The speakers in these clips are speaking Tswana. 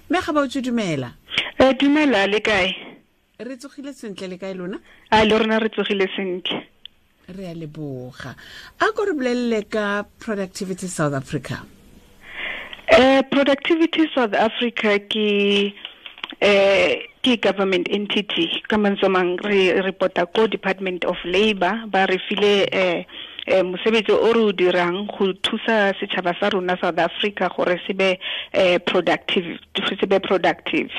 Mme Gabaotswe, dumela. Dumela, le kae? Re tsogile sentle, le kae lona? A le rona re tsogile sentle. Re a leboga. A ko re bolelele ka Productivity South Africa. Productivity South Africa ke government entity. Ka mantswe mang, re reporta ko Department of Labor. Ba re file mosebetsi o re o dirang go thusa setšhaba sa rona South Africa gore se be productive, se be productive.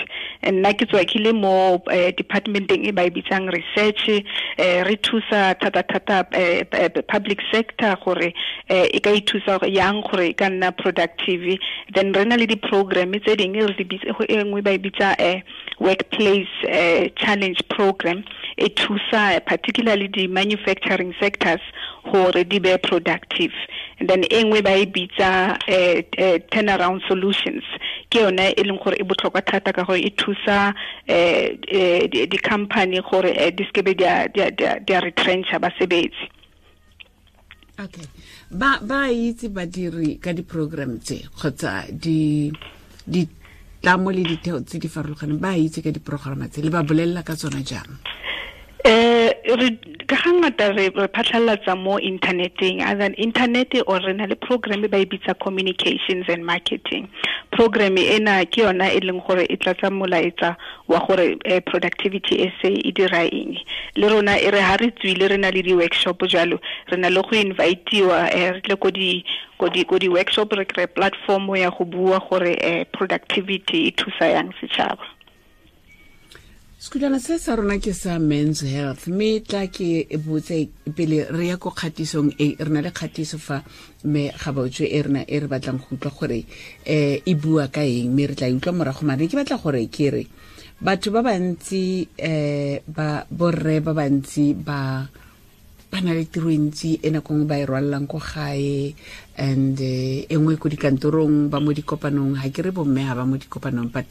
Nna ke tswa ke le mo departmenteng e ba e bitsang research. Re thusa thata-thata public sector gore e ka ithusa yang gore e ka nna productive. Then re na le di-program tse dingwe re di bitse, e nngwe ba e bitsa Workplace Challenge Program, e thusa particularly di-manufacturing sectors gore di be productive. And then e nngwe ba e bitsa Turnaround Solutions, ke yone e leng gore e botlhokwa thata ka gore e thusa di-company gore di sekebe di a retrencha basebetsi. Okay, ba itse badiri ka di-program tse kgotsa di tlamo le ditheo tse di farologaneng, ba itse ka diprograma tse, le ba bolelela ka tsona jang? Re ka ga ngata re phatlhalatsa mo inthaneteng, either internet or re na le program ba e bitsa communications and marketing program. Ena ke yona e leng gore e tlatsa molaetsa wa gore Productivity SA e dira eng. Le rona e re ha re tswile, re na le di-workshop jalo, re na le go invitiwa, re tle ko di workshop, re kry platform ya go bua gore productivity e thusa yang setšhaba. Sekhutwana se sa rona ke sa Men's Health, mme tla ke botse pele re ya ko kgatisong e re na le kgatiso fa, mme Gabaotswe, e rena e re batlang go utlwa gore e bua ka eng, mme re tla e utlwa morago. Mare ke batla gore ke re batho ba bantsi, ba borre ba bantsi ba na le tiro e ntsi e nako nngwe ba e rwalelang ko gae and e nngwe ko dikantorong, ba mo dikopanong. Ga ke re bomme ga ba mo dikopanong, but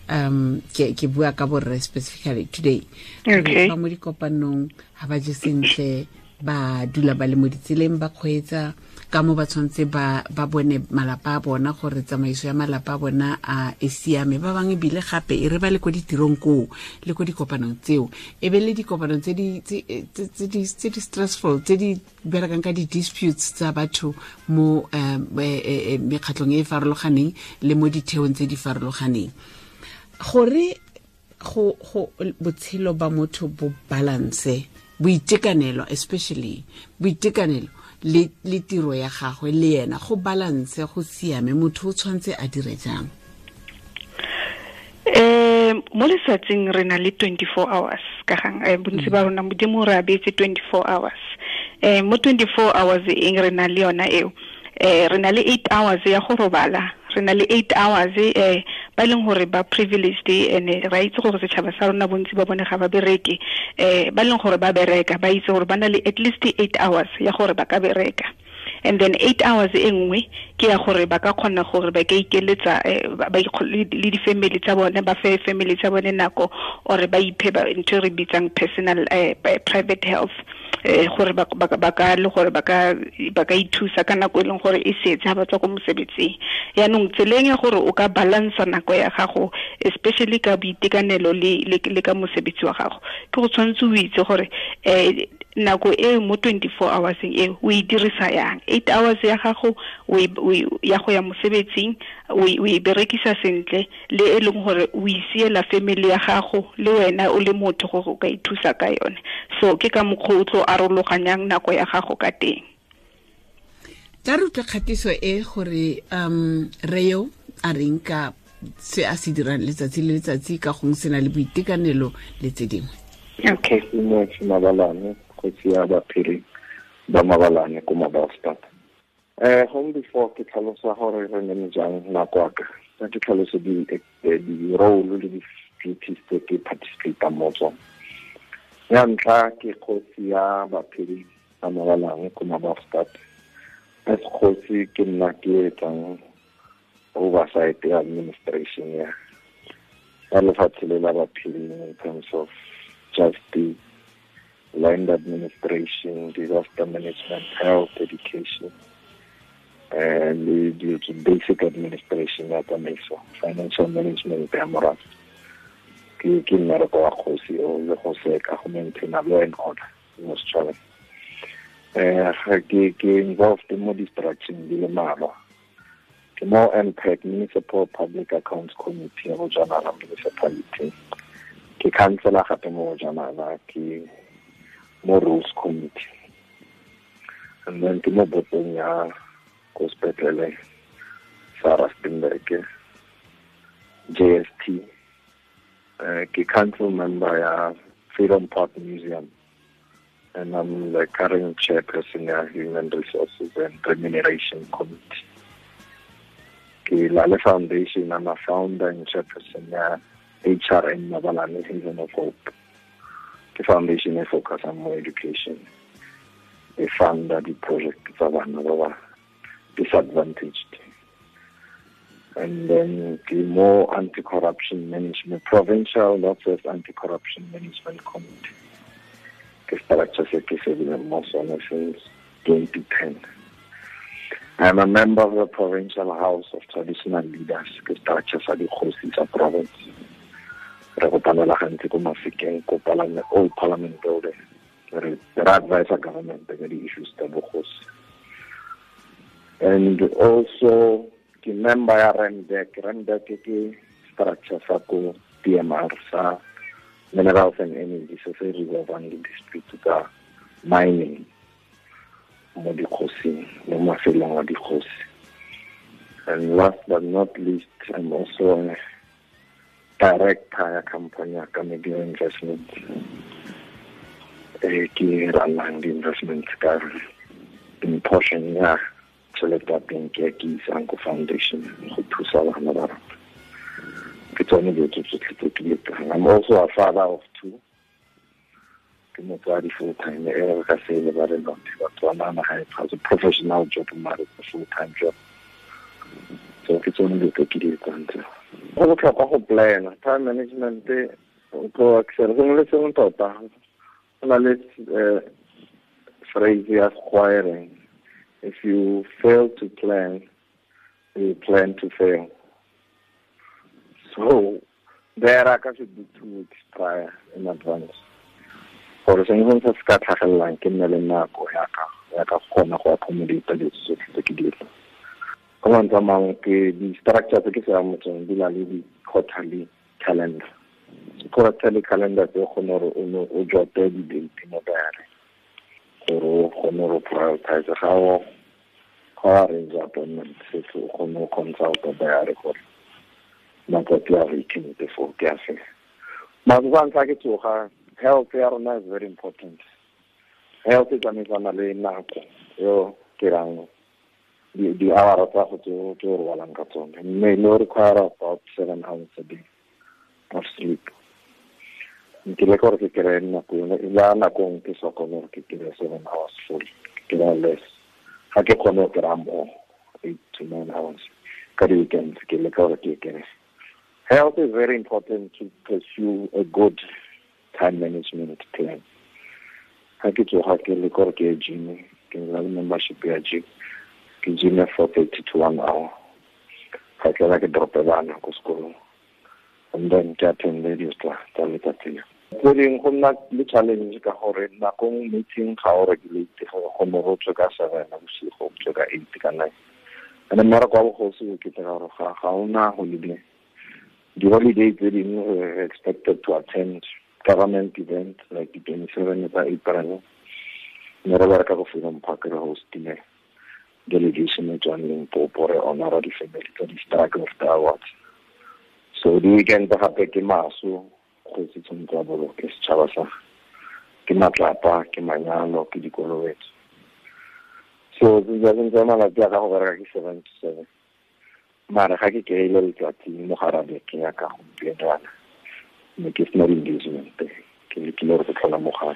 ke bua ka borre specifically today. Ba mo dikopanong, ga ba je sentle, ba dula ba le mo ditseleng, ba kgweetsa ka mo, ba tshwanetse ba bone malapa a bona gore tsamaiso ya malapa a bona a e siame. Ba bangwe ebile gape e re ba le ko ditirong koo le ko dikopanong tseo, e be le dikopanong tse di stressful, tse di berekang ka di-disputes tsa batho mo mekgatlhong e e farologaneng le mo ditheong tse di farologaneng, gore go botshelo ba motho bo balance, boitekanelo, especially boitekanelo le tiro ya gagwe le yena, go balance, go siame, motho o tshwanetse a dire jang? Mo letsatsing re na le 24 hours ka gang. Bontsi ba rona Modimo re abetse 24 hours. Mo 24 hours eng re na le yona eo, re na le 8 hours ya go robala, re na le 8 hours ba e leng gore ba privileged, and ra itse gore setšhaba sa rona bontsi ba bone ga ba bereke. Ba e leng gore ba bereka ba itse gore ba na le at least 8 hours ya gore ba ka bereka, and then 8 hours e nngwe ke ya gore ba ka kgona gore ba ka ikeletsa le di-family tsa bone, ba fe family tsa bone nako or ba iphe ntho e re bitsang personal private health, gore ba ka le gore ba ka ithusa ka nako e leng gore e setse ha ba tswa ko mosebetsing. Yaanong tseleng ya gore o ka balansa nako ya gago, especially ka boitekanelo le ka mosebetsi wa gago, ke go tshwanetse o itse gore nako e mo 24 hours e o e dirisa yang. 8 hours ya gago ya go ya mosebetsing o e berekisa sentle, le e leng gore o isiela family ya gago le wena o le motho gore o ka ithusa ka yone. So ke ka mokgwa o tlo arologanyang nako ya gago ka teng. Tla re utlwe kgatiso e gore reo a reng ka se a se dirang letsatsi le letsatsi ka gongwe se na le boitekanelo le tse dingwe. Okay. Kgosi Mabalane, kgosi ya baphiri ba Mabalane ko Mabastad. Gong before ke tlhalosa gore re nene jang nako ya ka, ke tlhalose di role le di-duties tse ke participatang mo tsone. Ya ntlha, ke kgosi ya baphiri ba Mabalane ko Mabastad. As kgosi, ke nna ke etsang oversight ya administration ya lefatshe le la baphiring in terms of justice, land administration, disaster management, health, education. Le dilo tse basic administration ya tsamaiso, financial management ya morafe. Ke mmereko wa kgosi o le go seka go maintaina law and order mo setšhabeng. Ke involved mo distructuring di le mmalwa. Ke mo MPAC, Municipal Public Accounts Committee ya Bojanala Municipality. Ke councillor gape mo Bojanala, ke mo Rules Committee. And then ke mo botong ya ko sepetlele sa Rustenburg, JST. Ke council member ya Freedom Park Museum, and I'm the current chairperson ya Human Resources and Remuneration Committee. Ke Lale Foundation, I'm a founder and chairperson ya HRN Mabalane Haven of Hope. Ke foundation e focus on more education. E funda di-project tsa bana ba ba disadvantaged. And then the more anti-corruption management, provincial Northwest Anti-Corruption Management Committee. Ke structure se ke sebile mo sone since 2010. I'm a member of the Provincial House of Traditional Leaders, ke structure sa dikgosi tsa province. Re kopanela gantsi ko Mafikeng, ko Parliament, Old Parliament Building. Re advise government ka di-issues tsa bogosi. And also ke member ya REMDEC. REMDEC ke structure sa ko PMR sa Minerals and Energy, se se resolvang di-dispute tsa mining mo dikgosing, mo mafelong a dikgosi. And last but not least, I'm also a director ya company ya Media Investment. Ke runang di-investment ka in portion ya tšhelete ya teng ke isang ko foundation go thusa bana ba rona. Ke tsone dilo tse tsotlhe tse ke di etsang. I'm also a father of two. Ke motswadi full time, e re ka se lebale lothe Batswana naga e a professional job, mare a full time job. So ke tsone dilo tse ke di etsang tseo. Go botlhokwa go plana, time management o tlo excel sengwe le sengwe tota. Go na le phrase ya Sekgowa e reng, if you fail to plan, you plan to fail. So there I should be 2 weeks prior in advance. Gore sengwe se se ka tlhagelelang ke nne le nako ya ka kgona go accommodate dilo tsotlhe tse ke di etsang. Ka mantswe a mangwe ke di-structure tse ke se amotseng di na le di-quarterly calendar. Quarterly calendar tse o kgone gore o jote di-date mo diary, gore o kgone go prioritize ga o arrange appointment setse o kgone go consulta diary gore matsatsi a weekend before ke a fe. Matsatsi a ntlha ke tsoga, health ya rona is very important. Health e tsamaisana le nako eo ke rang di-hour tsa go tse o robalang ka tsone. Mme le require about 7 hours a day of sleep. Nkile gore ke kry-e nako yone, la nakong ke sa kgone gore ke kry-e 7 hours full, ke kry-a less. Ga ke kgone go kry-a more, 8 to 9 hours. Ka di-weekends ke leka gore ke kry-e. Health is very important to pursue a good time management plan. Ga ke tsoga ke leka gore ke ye gym, ke na le membership ya gym. Ke gym 4:30 to 1 hour. Ga ke la ke drope bana ko sekolong. And then ke attend dilo tsa letsatsi leo. Tse dingwe go nna le challenge ka gore nakong meeting ga o regulate gore kgone go tswe ka 7 bosigo, o tswe ka 8 ka 9. And mmereko wa bogosi o kete ka gore ga ona holiday. Di-holiday tse dingwe we're expected to attend government event like the 27 tsa April. Mme re bereka go Freedom Park re hostile delegation e tswang Limpopo re honora di-family tsa di-struggle of the awards. So di-weekend gape ke maso, kgosi tshwanetse a boloke setšhaba sa ke matlapa, ke manyalo, ke dikolobetso. So tse malatsi a ka go bereka ke 7 to 7. Mara ga ke kry-ile letsatsi mo gare ga beke ya ka gompieno jaana, mme ke sena di-engagement, ke lekile gore ke tlhola mo gae.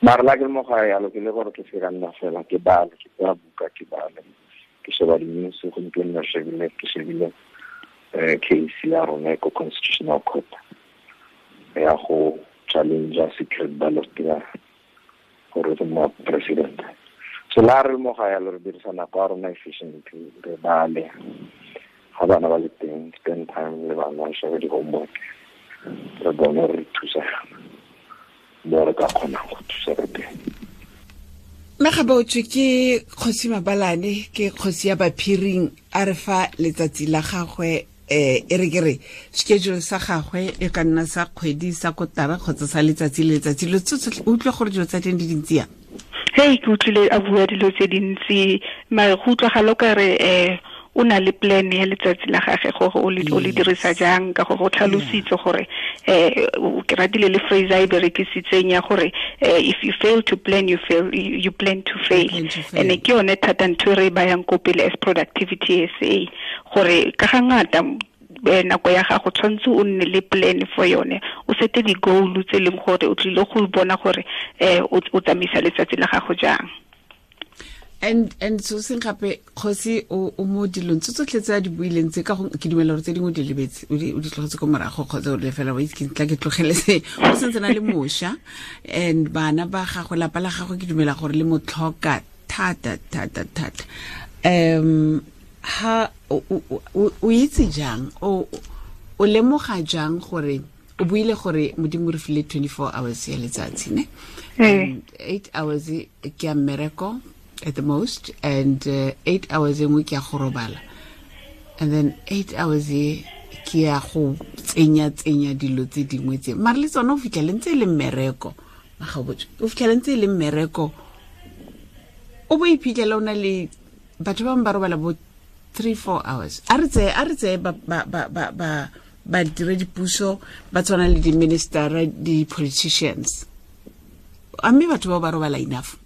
Mara la ke le mo gae yalo ke le gore ke se ka nna fela ke bale, ke tsaya buka ke bale, ke sheba di-news. Gompieno ke shebile case ya rona ko Constitutional Court ya go challenge secret ballot ya gore re mo president. So la re mo ga ya re dirisa nako ya rona efficiently, re bale ga bana ba le teng, spend time le bana, shebe di-homework, re bone re thusa mo re ka kgonang go thusa ka teng. Mme Gabaotswe ke Kgosi Mabalane, ke kgosi ya Baphiring, a re fa letsatsi la gagwe e re ke re schedule sa gagwe e ka nna sa kgwedi, sa kotara kgotsa sa letsatsi le letsatsi. Lo tsotlhe o utlwa gore dilo tsa teng di dintsi yang? Hei, ke utlwile a bua dilo tse dintsi, mare go utlwagala o ka re o na le plan ya letsatsi la gagwe gore o le dirisa jang, ka gore o tlhalositse gore ke ratile le phrase a e berekisitseng ya gore if you fail to plan, you fail, you plan to fail. And ke yone thata ntho e re e bayang ko pele as Productivity SA, gore ka ga ngata nako ya gago tshwanetse o nne le plan for yone, o sete di-goal tse leng gore o tlile go bona gore o tsamaisa letsatsi la gago jang. And so seng gape kgosi o mo dilong tse tsotlhe tse a di buileng tse, ka go ke dumela gore tse dingwe di lebetse, o di tlogetse ko morago kgotsa o le fela wa itse ke tla ke tlogele se. O sentse na le mošwa and bana ba gagwe, lapa la gagwe ke dumela gore le mo tlhoka thata thata thata. Ha o itse jang, o lemoga jang gore o buile gore Modimo re file 24 hours ya letsatsi, ne? 8 hours ke ya mmereko at the most, and 8 hours engwe ke ya go robala, and then 8 hours e ke ya go tsenya dilo tse dingwe tse, mare le tsone o fitlhele ntse e le mmereko. Magabotswe o fitlhele ntse e le mmereko, o bo iphitlhela o na le batho ba bangwe ba robala bo 3-4 hours. A re tseye ba diredipuso ba tshwana le di-minister, di-politicians, a mme batho bao ba robala enough?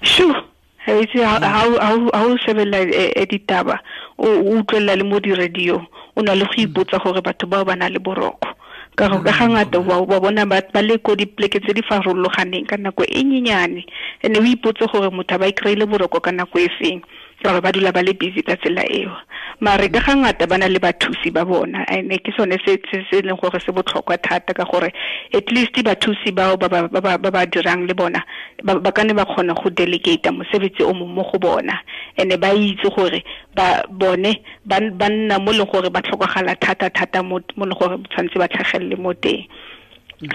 Sure. Ha o shebella ditaba, o utlwella le mo di-radio, o na le go ipotsa gore batho bao ba na le boroko. Ka gore ka ga ngata wa bona ba le ko dipoleke tse di farologaneng ka nako e nyenyane, and o ipotse gore motho a ba i-kry-ile boroko ka nako e feng, ka gore ba dula ba le busy ka tsela eo. Mare ka ga ngata ba na le bathusi ba bona, and ke sone se se leng gore se botlhokwa thata, ka gore at least bathusi bao ba ba dirang le bona ba ka ne ba kgona go delegate mosebetsi o mongwe mo go bona, and ba itse gore ba bone ba nna mo leng gore ba tlhokagala thata thata mo leng gore tshwanetse ba tlhagelele mo teng.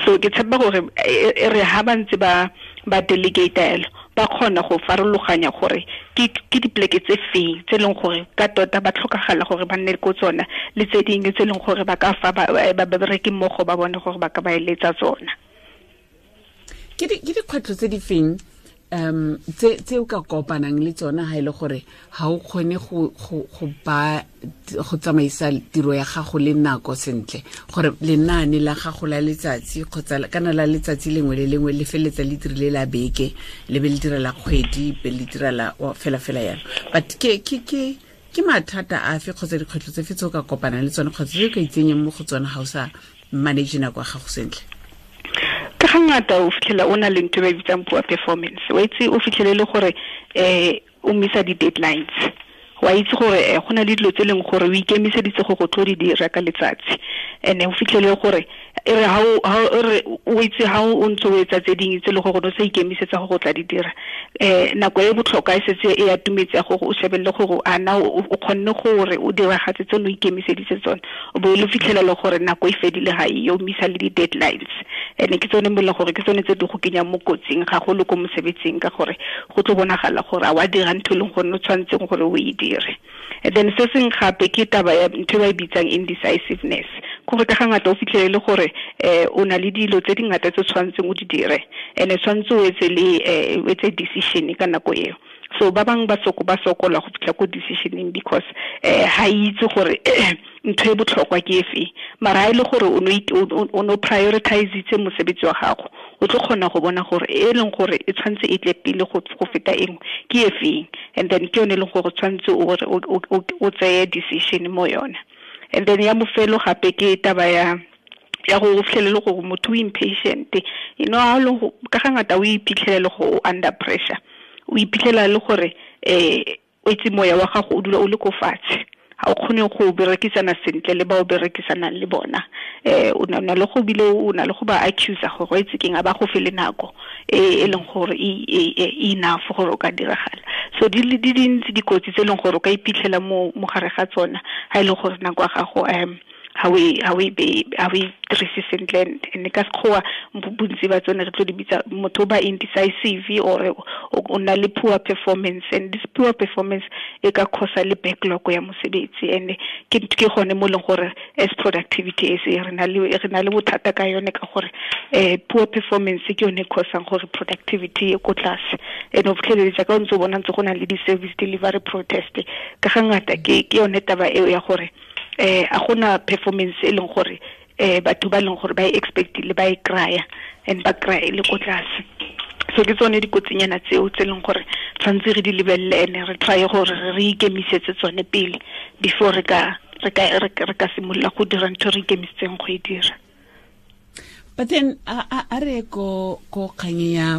So ke tshepa gore e re ha ba ntse ba delegate elo, ba kgona go farologanya gore ke dipoleke tse feng tse leng gore ka tota ba tlhokagala gore ba nne ko tsona, le tse dingwe tse leng gore ba ka fa ba bereki mmogo ba bone gore ba ka ba eletsa tsona. Ke dikgwetlho tse di feng tse o ka kopanang le tsona ha ile gore ha o kgone go ba go tsamaisa tiro ya gago le nako sentle, gore lenaane la gago la letsatsi kgotsa kana la letsatsi lengwe le lengwe le feletsa le dirile la beke, le be le dira la kgwedi, be le dira la fela fela yalo? But ke mathata afe kgotsa dikgwetlho tse fe tse o ka kopanang le tsone kgotsa tse o ka itsenyang mo go tsone ha o sa manage nako ya gago sentle? Ka ga ngata o fitlhela o na le ntho e ba bitsang poor performance. Wa itse o fitlhele le gore o missa di-deadlines. Wa itse gore go na le dilo tse leng gore o ikemiseditse go tlo di dira ka letsatsi, and o fitlhele gore e re ha o itse ha o ntse o etsa tse dingwe tse le gore o sa ikemisetsa go tla di dira, nako e botlhokwa e setse e atumetse gore o shebelle gore a na o kgonne gore o diragatse tse o ikemiseditse tsone, o bo le fitlhela le gore nako e fedile ga e o missa le di-deadlines. And ke tsone mo le gore ke tsone tse di go kenyang mo kotsing gagolo ko mosebetsing, ka gore go tlo bonagala gore a wa dira ntho e leng gore o tshwanetseng gore o e dire. And then se seng gape ke taba ya ntho e ba e bitsang indecisiveness, gore ka ga ngata o fitlhele le gore o na le dilo tse dingata tse tshwanetseng o di dire, and tshwanetse o etse le o etse decision ka nako eo. So ba bangwe ba sokola go fitlha ko decisioning because ha itse gore ntho e botlhokwa ke efe, mara ha ile gore o no prioritise mosebetsi wa gago, o tlo kgona go bona gore e leng gore e tshwanetse e tle pele go feta engwe ke efeng, and then ke yone e leng gore tshwanetse o tseye decision mo yona. And then ya mofelo gape ke taba ya go fitlhelele gore motho o impatient, you know, ha lo ka ga ngata o iphitlhelele go under pressure, o iphitlhela le gore o itse moya wa gago o dula o le ko fatshe, ha A o kgone go berekisana sentle le ba o berekisanang le bona. O na le go bile o na le go ba accuse gore o itse keng a ba go fele nako e leng gore e enough gore o ka diragala. So di le di dintsi dikotsi tse leng gore o ka iphitlhela mo gare ga tsona ha ile gore nako ya gago ha we dirise sentle. And ka sekgowa bontsi ba tsone re tlo di bitsa motho ba indecisive or o na le poor performance, and this poor performance e ka cause le backlog ya mosebetsi. And ke gone mo leng gore as productivity e se re na le bothata ka yone, ka gore poor performance ke yone e causang gore productivity e ko tlase. And o fitlheletse ka o ntse o bona ntse go na le di-service delivery protest ka ga ngata ke yone taba eo ya gore a gona performance e leng gore batho ba leng gore ba e expectile ba e kraya and ba kraya le ko tlase. So ke tsone dikotsinyana tseo tse leng gore tshwanetse re di lebelele ene re try gore re ikemisetse tsone pele before re ka simolola go dira ntho re ikemisetseng go e dira. But then a re ko kgang ya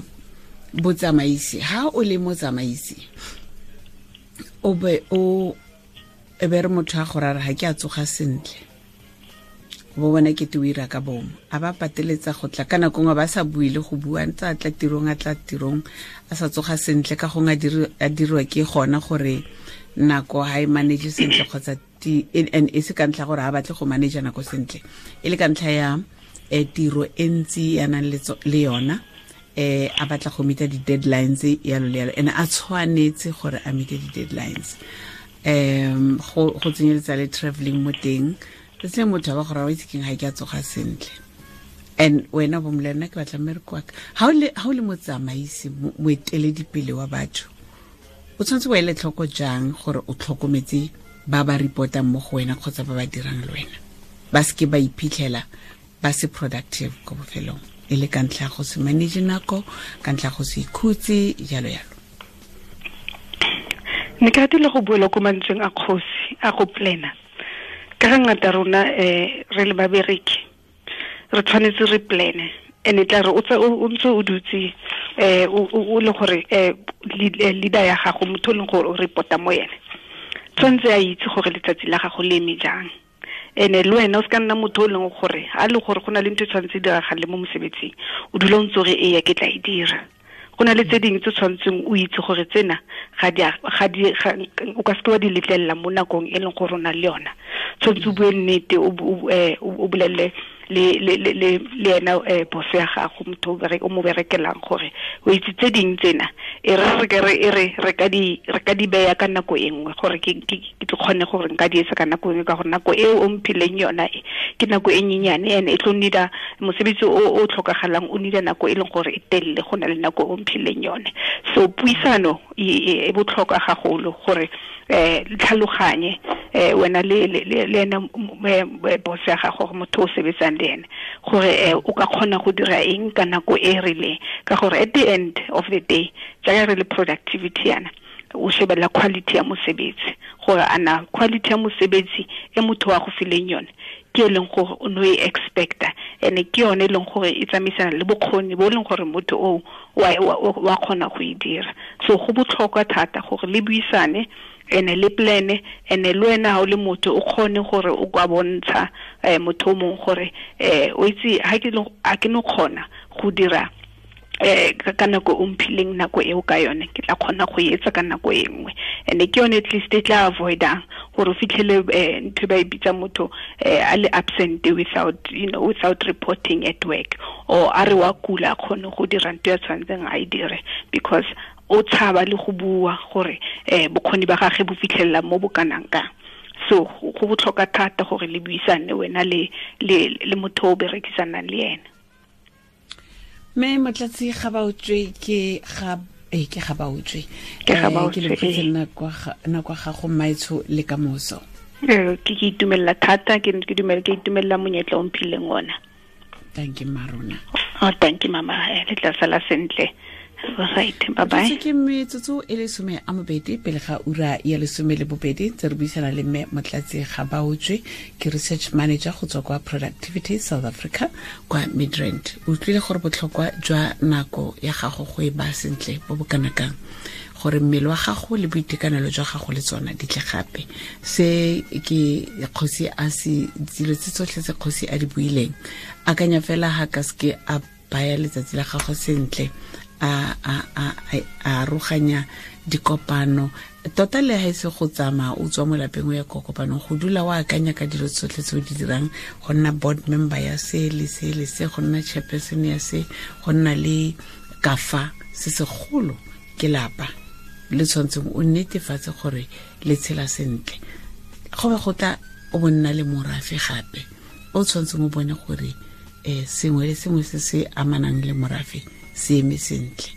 botsamaisi, ha o le motsamaisi o be o e be re motho a gore a re ga ke a tsoga sentle, bo bona ke te o ira ka bomo, a ba pateletsa go tla ka nako nngwe ba sa bue le go bua, ntse a tla tirong a sa tsoga sentle, ka gongwe a dirwa ke gona gore nako ha e manage sentle kgotsa and e se ka ntlha gore ha batle go manage nako sentle, e le ka ntlha ya tiro e ntsi ya nang le yona, a batla go meeta di-deadlines yalo le yalo, and a tshwanetse gore a meete di-deadlines. Go tsenyeletsa le travelling mo teng, se motho ba gore wa itse keng ga ke a tsoga sentle, and wena bo molena ke batla mmereko wa ka. Ha o le motsamaisi, moeteledipele wa batho, o tshwanetse o ele tlhoko jang gore o tlhokometse ba ba reportang mo go wena kgotsa ba ba dirang le wena, ba seke ba iphitlhela ba se productive ko bofelong, e le ka ntlha go se manage nako, ka ntlha go se ikhutse, jalo jalo. Ne ke ratile go buela ko mantsweng a kgosi a go plana. Ka ga ngata rona re le babereki re tshwanetse re plane, and e tla re o ntse o dutse o le gore leader ya gago, motho o leng gore o reporta mo yene, tshwanetse a itse gore letsatsi la gago le eme jang. Ene le wena o se ka nna motho o leng gore a le gore go na le ntho e tshwanetse e diragale mo mosebetsing, o dula o ntse o re eya ke tla e dira. Go na le tse dingwe tse tshwanetseng o itse gore tsena o ka seke wa di letlelela mo nakong e leng gore o na le yona. Tshwanetse o bue nnete, o bolelele le ena boss ya gago, motho o mo berekelang, gore o itse tse dingwe tsena e re ka di beya ka nako e nngwe, gore ke tlo kgone gore nka di etsa ka nako e nngwe, ka gore nako eo o mphileng yona e ke nako e nyenyane, and e tlo needa mosebetsi o tlhokagalang, o needa nako e leng gore e telele go na le nako o mphileng yone. So puisano e botlhokwa gagolo gore tlhaloganye wena le ena boss ya gago, gore motho o sebetsang le ene, gore o ka kgona go dira eng ka nako e rileng, ka gore at the end of the day jaaka re le productivity yana, o shebella quality ya mosebetsi, gore ana quality ya mosebetsi e motho wa go fileng yone ke e leng gore o no e expecta, and ke yone e leng gore e tsamaisana le bokgoni bo leng gore motho o wa kgona go e dira. So go botlhokwa thata gore le buisane ene le plane, ene le wena ha o le motho o kgone gore o kwa bontsha motho o mongwe gore o itse ha ke no kgona go dira ka nako o mphileng nako eo ka yone, ke tla kgona go etsa ka nako e nngwe. And ke yone at least e tla avoidang gore o fitlhele ntho ba e bitsa motho a le absent without reporting at work, or a re wa kula a kgone go dira ntho ya tshwanetseng a e dire, because o tshaba le go bua gore bokgoni ba gagwe bo fitlhelela mo bo kanang kang. So go botlhokwa thata gore le buisane wena le motho o berekisanang le ene. Me Motlatsi Gabaotswe ke Gabaotswe. Ke lebogetse nako ya gago mmaetsho le kamoso. Ke itumella thata, ke itumella monyetla o mphileng ona. Thank you Marona. Oh, thank you mama. Le tla sala sentle. Right, bye bye. Ke metsotso e le 12 pele ga ura ya 12 tse re buisana le mme Motlatsi Gabaotswe, ke research manager go tswa kwa Productivity South Africa kwa Midrand. O utlwile gore botlhokwa jwa nako ya gago go e ba sentle bo bo kana kang, gore mmele wa gago le boitekanelo jwa gago le tsona di tle gape. Se ke kgosi a se dilo tse tsotlhe tse kgosi a di buileng, akanya fela ha ka seke a baya letsatsi la gago sentle, a aroganya dikopano tota le ha e se go tsamaya o tswa mo lapeng o ya ko kopanong, go dula o akanya ka dilo tsotlhe tse o di dirang, go nna board member ya se le se le se, go nna chairperson ya se, go nna le kafa se segolo ke lapa le tshwanetseng o netefatse gore le tshela sentle. Go be go tla o bonna le morafe gape o tshwanetseng o bone gore sengwe le sengwe se se amanang le morafe se eme sentle,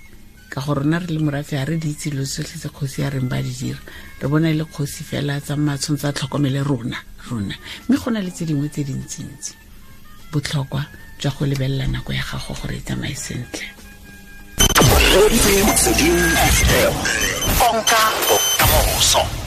ka gore rona re le morafe ga re di itse dilo tsotlhe tse kgosi ya reng ba di dira, re bona e le kgosi fela tsa tshwanetse a tlhokomele rona, mme go na le tse dingwe tse dintsintsi. Botlhokwa jwa go lebelela nako ya gago gore e tsamaye sentle. Konka bokamoso.